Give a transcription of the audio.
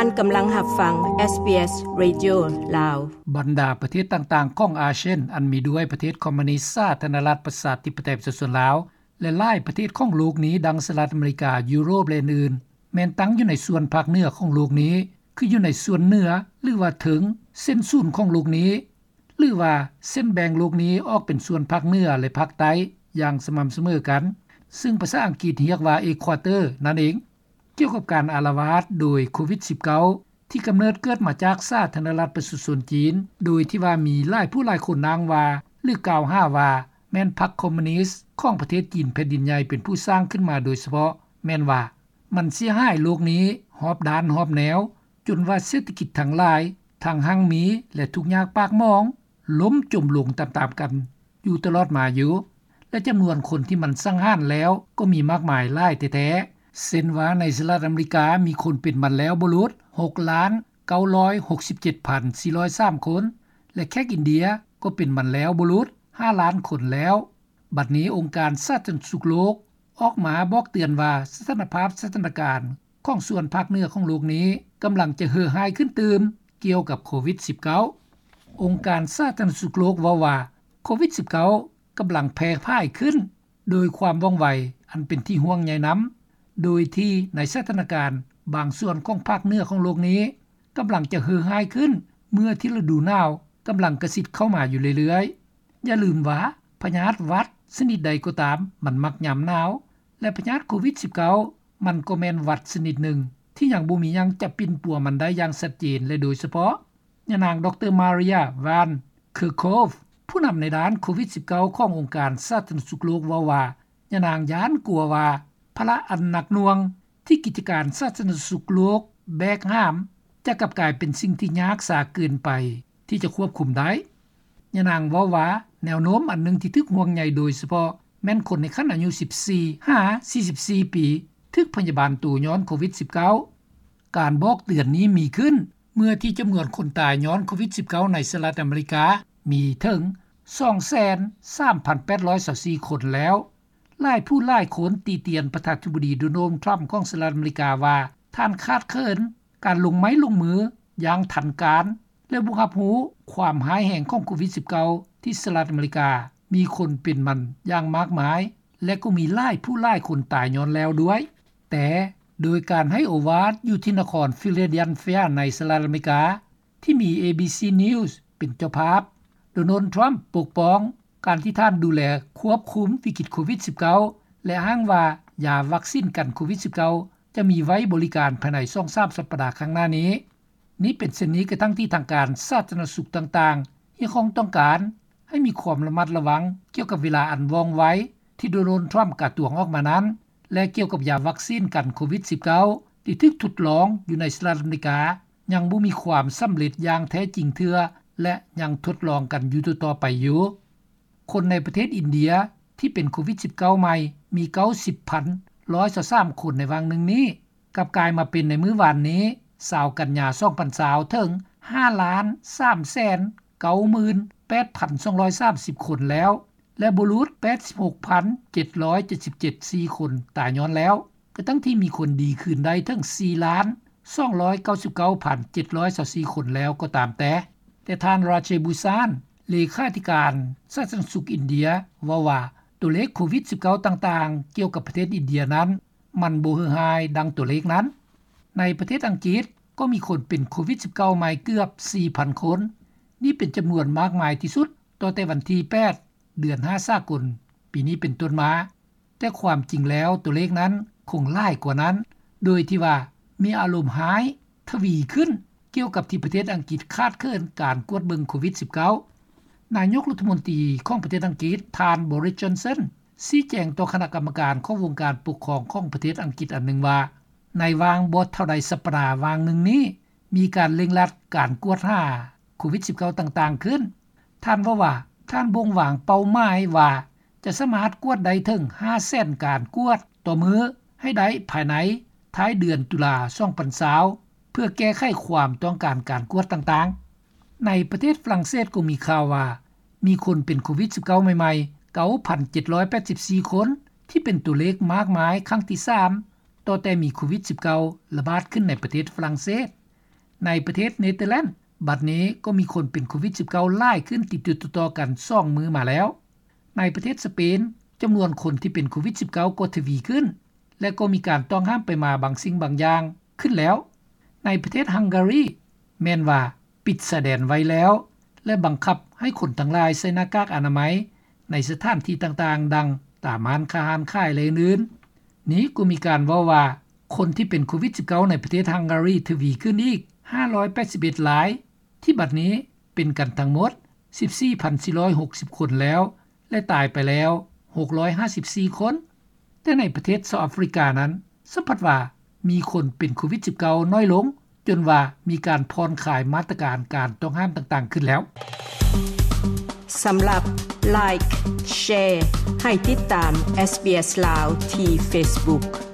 ທ່ານກຳລັງຮັບຟັງ ເອສບີເອສ ເຣດິໂອ ລາວ. ບັນດາປະເທດຕ່າງໆຂອງອາຊຽນ ອັນມີດ້ວຍປະເທດຄອມມູນິດ ສາທາລະນະລັດ ປະຊາທິປະໄຕ ປະຊາຊົນລາວ ແລະ ຫຼາຍປະເທດຂອງໂລກນີ້ ດັ່ງສະຫະລັດອາເມລິກາ, ຢູໂຣບ ແລະ ອື່ນໆ ແມ່ນຕັ້ງຢູ່ໃນສ່ວນພາກເໜືອຂອງໂລກນີ້ ຄືຢູ່ໃນສ່ວນເໜືອ ຫຼືວ່າເທິງເສັ້ນສູນຂອງໂລກນີ້ ຫຼື ວ່າເສັ້ນແບ່ງໂລກນີ້ອອກເປັນສ່ວນພາກເໜືອ ແລະ ພາກໃຕ້ຢ່າງສະໝ່ຳສະເໝີກັນ, ຊຶ່ງພາສາອັງກິດຮຽກວ່າ Equator ນັ້ນເອງ. ກ່ຽວກັບການອາລະວາດໂດຍໂຄວິດສິບເກົ້າ ທີ່ກຳເນີດເກີດມາຈາກສາທາລະນະລັດປະຊາຊົນຈີນ ໂດຍທີ່ວ່າມີຫຼາຍຜູ້ຫຼາຍຄົນອ້າງວ່າ ຫຼື ກ່າວຫາວ່າ ແມ່ນພັກຄອມມູນິດຂອງປະເທດຈີນແຜ່ນດິນໃຫຍ່ເປັນຜູ້ສ້າງຂຶ້ນມາໂດຍສະເພາະ, ແມ່ນວ່າ ມັນເສຍຫາຍໂລກນີ້ຮອບດ້ານຮອບແນວ ຈົນວ່າເສດຖະກິດທັງຫຼາຍ ທັງຮັ່ງມີ ແລະ ທຸກຍາກປາກໝອງ ລົ້ມຈົມລົງຕາມໆກັນຢູ່ຕະຫຼອດມາຢູ່ ແລະ ຈຳນວນຄົນທີ່ມັນສັງຫານແລ້ວກໍມີມາກມາຍຫຼາຍແທ້ໆ, ເຊັ່ນວ່າ ໃນສະຫະລັດອາເມລິກາ ມີຄົນເປັນມັນແລ້ວບໍ່ຫຼຸດ ຫົກລ້ານເກົ້າຮ້ອຍຫົກສິບເຈັດພັນສີ່ຮ້ອຍສາມຄົນ ແລະ ແຂກອິນເດຍກໍເປັນມັນແລ້ວບໍ່ຫຼຸດ ຫ້າລ້ານຄົນແລ້ວ. ບັດນີ້ ອົງການສາທາລະນະສຸກໂລກອອກມາບອກເຕືອນວ່າ ສະຖານະພາບສະຖານະການຂອງສ່ວນພາກເໜືອຂອງໂລກນີ້ ກຳລັງຈະເຫື່ອຮ້າຍຂຶ້ນຕື່ມກ່ຽວກັບໂຄວິດສິບເກົ້າ. ອົງການສາທາລະນະສຸກໂລກເວົ້າວ່າ ໂຄວິດສິບເກົ້າ ກຳລັງແຜ່ຜາຍຂຶ້ນໂດຍຄວາມວ່ອງໄວອັນເປັນທີ່ຫ່ວງໃຍນຳ, ໂດຍທີ່ໃນສະຖານະການບາງສ່ວນຂອງພາກເໜືອຂອງໂລກນີ້ ກຳລັງຈະເຫື່ອຮ້າຍຂຶ້ນ ເມື່ອທີ່ລະດູໜາວກຳລັງກະຊິດເຂົ້າມາຢູ່ເລື້ອຍໆ. ຢ່າລືມວ່າ ພະຍາດຫວັດຊະນິດໃດກໍຕາມ ມັນມັກຍາມໜາວ ແລະ ພະຍາດໂຄວິດສິບເກົ້າ ມັນກໍແມ່ນຫວັດຊະນິດໜຶ່ງ ທີ່ຍັງບໍ່ມີຫຍັງຈະປິ່ນປົວມັນໄດ້ຢ່າງຊັດເຈນ ແລະ ໂດຍສະເພາະ ຍານາງ ດຣ. Maria van Kerkhove ຜູ້ນຳໃນດ້ານໂຄວິດສິບເກົ້າ ຂອງອົງການສາທາລະນະສຸກໂລກເວົ້າວ່າ ຍານາງຢ້ານກົວວ່າ ພາລະອັນໜັກໜ່ວງ ທີ່ກິດຈະການສາທາລະນະສຸກໂລກແບກຫາມ ຈະກັບກາຍເປັນສິ່ງທີ່ຍາກສາເກີນໄປທີ່ຈະຄວບຄຸມໄດ້. ຍານາງເວົ້າວ່າ ແນວໂນ້ມອັນໜຶ່ງທີ່ຖືກຫ່ວງໃຍໂດຍສະເພາະ ແມ່ນຄົນໃນຂັ້ນອາຍຸສິບສີ່ຫາສີ່ສິບສີ່ປີ ຖືກພະຍາບານໂຕຍ້ອນໂຄວິດສິບເກົ້າ. ການບອກເຕືອນນີ້ມີຂຶ້ນ ເມື່ອທີ່ຈຳນວນຄົນຕາຍຍ້ອນໂຄວິດສິບເກົ້າ ໃນສະຫະລັດອາເມລິກາ ມີເຖິງສອງແສນສາມພັນແປດຮ້ອຍຊາວສີ່ຄົນແລ້ວ. ຫຼາຍຜູ້ຫຼາຍຄົນຕິຕຽນປະທານາທິບໍດີ ໂດນັລ ທຣຳ ຂອງສະຫະລັດອາເມລິກາວ່າ ທ່ານຂາດເຂີນການລົງໄມ້ລົງມືຢ່າງທັນການ ແລະ ບໍ່ຮັບຮູ້ຄວາມຮ້າຍແຮງຂອງໂຄວິດສິບເກົ້າ ທີ່ສະຫະລັດອາເມລິກາມີຄົນເປັນມັນຢ່າງມາກມາຍ ແລະ ກໍມີຫຼາຍຜູ້ຫຼາຍຄົນຕາຍຍ້ອນແລ້ວດ້ວຍ. ແຕ່ໂດຍການໃຫ້ໂອວາດຢູ່ທີ່ນະຄອນ Philadelphia ໃນສະຫະລັດອາເມລິກາ ທີ່ມີ ເອບີຊີ News ເປັນເຈົ້າພາບ, ໂດນັລ ທຣຳ ປົກປ້ອງການທີ່ທ່ານດູແລຄວບຄຸມວິກິດໂຄວິດສິບເກົ້າ ແລະ ອ້າງວ່າຢາວັກຊິນກັນໂຄວິດສິບເກົ້າ ຈະມີໄວ້ບໍລິການພາຍໃນສອງສາມສັບປະດາຂ້າງໜ້ານີ້. ນີ້ເປັນເຊັ່ນນີ້ກະທັ່ງທີ່ທາງການສາທາລະນະສຸກຕ່າງໆ ຮຽກຮ້ອງຕ້ອງການໃຫ້ມີຄວາມລະມັດລະວັງກ່ຽວກັບເວລາອັນວ່ອງໄວ ທີ່ໂດນັລ ທຣຳ ກະຕວງອອກມານັ້ນ ແລະ ກ່ຽວກັບຢາວັກຊິນກັນໂຄວິດສິບເກົ້າ ທີ່ຖືກທົດລອງຢູ່ໃນສະຫະລັດອາເມລິກາ ຍັງບໍ່ມີຄວາມສຳເລັດຢ່າງແທ້ຈິງເທື່ອ ແລະ ຍັງທົດລອງກັນຢູ່ຕໍ່ໆໄປຢູ່. ຄົນໃນປະເທດອິນເດຍທີ່ເປັນໂຄວິດສິບເກົ້າໃໝ່ມີເກົ້າສິບພັນໜຶ່ງຮ້ອຍຊາວສາມຄົນໃນຫວ່າງໜຶ່ງນີ້ ກັບກາຍມາເປັນໃນມື້ວານນີ້ ຊາວກັນຍາ ສອງພັນຊາວ ເຖິງຫ້າລ້ານສາມແສນເກົ້າໝື່ນແປດພັນສອງຮ້ອຍສາມສິບຄົນແລ້ວ ແລະ ບໍ່ຫຼຸດແປດສິບຫົກພັນເຈັດຮ້ອຍເຈັດສິບເຈັດ ສີ່ຄົນຕາຍຍ້ອນແລ້ວ ກະທັ່ງທີ່ມີຄົນດີຄືນໄດ້ເຖິງສີ່ລ້ານສອງຮ້ອຍເກົ້າສິບເກົ້າພັນເຈັດຮ້ອຍຊາວສີ່ຄົນແລ້ວກໍຕາມແຕ່. ແຕ່ທ່ານ ຣາເຈບູຊານ ເລຂາທິການສາທາລະນະສຸກອິນເດຍ ເວົ້າວ່າ ຕົວເລກໂຄວິດສິບເກົ້າຕ່າງໆກ່ຽວກັບປະເທດອິນເດຍນັ້ນ ມັນບໍ່ເຫື່ອຮ້າຍດັ່ງຕົວເລກນັ້ນ. ໃນປະເທດອັງກິດກໍມີຄົນເປັນໂຄວິດສິບເກົ້າໃໝ່ເກືອບສີ່ພັນຄົນ. ນີ້ເປັນຈຳນວນມາກມາຍທີ່ສຸດ ຕໍ່ແຕ່ວັນທີແປດ ເດືອນຫ້າສາກົນປີນີ້ເປັນຕົ້ນມາ, ແຕ່ຄວາມຈິງແລ້ວຕົວເລກນັ້ນຄົງຫຼາຍກວ່ານັ້ນ ໂດຍທີ່ວ່າມີອາລົມຮ້າຍທະວີຂຶ້ນ ກ່ຽວກັບທີ່ປະເທດອັງກິດຂາດເຂີນການກວດເບິ່ງໂຄວິດສິບເກົ້າ. ນາຍົກລັດຖະມົນຕີຂອງປະເທດອັງກິດ ທ່ານ ບໍຣິສ ຈອນສັນ ຊີ້ແຈງຕໍ່ຄະນະກຳມະການຂອງວົງການປົກຄອງຂອງປະເທດອັງກິດອັນໜຶ່ງວ່າ ໃນຫວ່າງບໍ່ເທົ່າໃດສັບປະດາຫວ່າງໜຶ່ງນີ້ ມີການເລັ່ງລັດການກວດຫາໂຄວິດສິບເກົ້າຕ່າງໆຂຶ້ນ. ທ່ານເວົ້າວ່າ ທ່ານບົ່ງວາງເປົ້າໝາຍວ່າຈະສາມາດກວດໄດ້ເຖິງຫ້າແສນການກວດຕໍ່ມື້ໃຫ້ໄດ້ພາຍໃນທ້າຍເດືອນຕຸລາ ສອງພັນຊາວ ເພື່ອແກ້ໄຂຄວາມຕ້ອງການການກວດຕ່າງໆ. ໃນປະເທດຝຣັ່ງເສດກໍມີຂ່າວວ່າ ມີຄົນເປັນໂຄວິດສິບເກົ້າໃໝ່ໆ ເກົ້າພັນເຈັດຮ້ອຍແປດສິບສີ່ຄົນ ທີ່ເປັນຕົວເລກມາກມາຍຄັ້ງທີສາມ ຕໍ່ແຕ່ມີໂຄວິດສິບເກົ້າລະບາດຂຶ້ນໃນປະເທດຝຣັ່ງເສດ. ໃນປະເທດເນເທີແລນ ບັດນີ້ກໍມີຄົນເປັນໂຄວິດ-19 ຫຼາຍຂຶ້ນຕິດໆຕໍ່ໆກັນສອງມື້ມາແລ້ວ. ໃນປະເທດສະເປນ ຈຳນວນຄົນທີ່ເປັນໂຄວິດ-19 ກໍທະວີຂຶ້ນ ແລະກໍມີການຕ້ອງຫ້າມໄປມາບາງສິ່ງບາງຢ່າງຂຶ້ນແລ້ວ. ໃນປະເທດຮັງກາຣີ ແມ່ນວ່າປິດຊາຍແດນໄວ້ແລ້ວ ແລະບັງຄັບໃຫ້ຄົນທັງຫຼາຍໃສ່ໜ້າກາກອະນາໄມ ໃນສະຖານທີ່ຕ່າງໆ ດັ່ງຕາມຮ້ານຄ້າຮ້ານຂາຍ ແລະອື່ນໆ. ນີ້ກໍມີການເວົ້າວ່າ ຄົນທີ່ເປັນໂຄວິດ-19 ໃນປະເທດຮັງກາຣີທະວີຂຶ້ນອີກຫ້າຮ້ອຍແປດສິບເອັດລາຍ ທີ່ບັດນີ້ເປັນກັນທັງໝົດສິບສີ່ພັນສີ່ຮ້ອຍຫົກສິບຄົນແລ້ວ ແລະຕາຍໄປແລ້ວຫົກຮ້ອຍຫ້າສິບສີ່ຄົນ. ແຕ່ໃນປະເທດເຊົາອາຟຣິການັ້ນ ສຳພັດວ່າມີຄົນເປັນໂຄວິດ-19 ໜ້ອຍລົງ ຈົນວ່າມີການຜ່ອນຄາຍມາດຕະການການຕ້ອງຫ້າມຕ່າງໆຂຶ້ນແລ້ວ. ສຳລັບ Like Share ໃຫ້ຕິດຕາມ SBS ລາວ ທີ່ Facebook.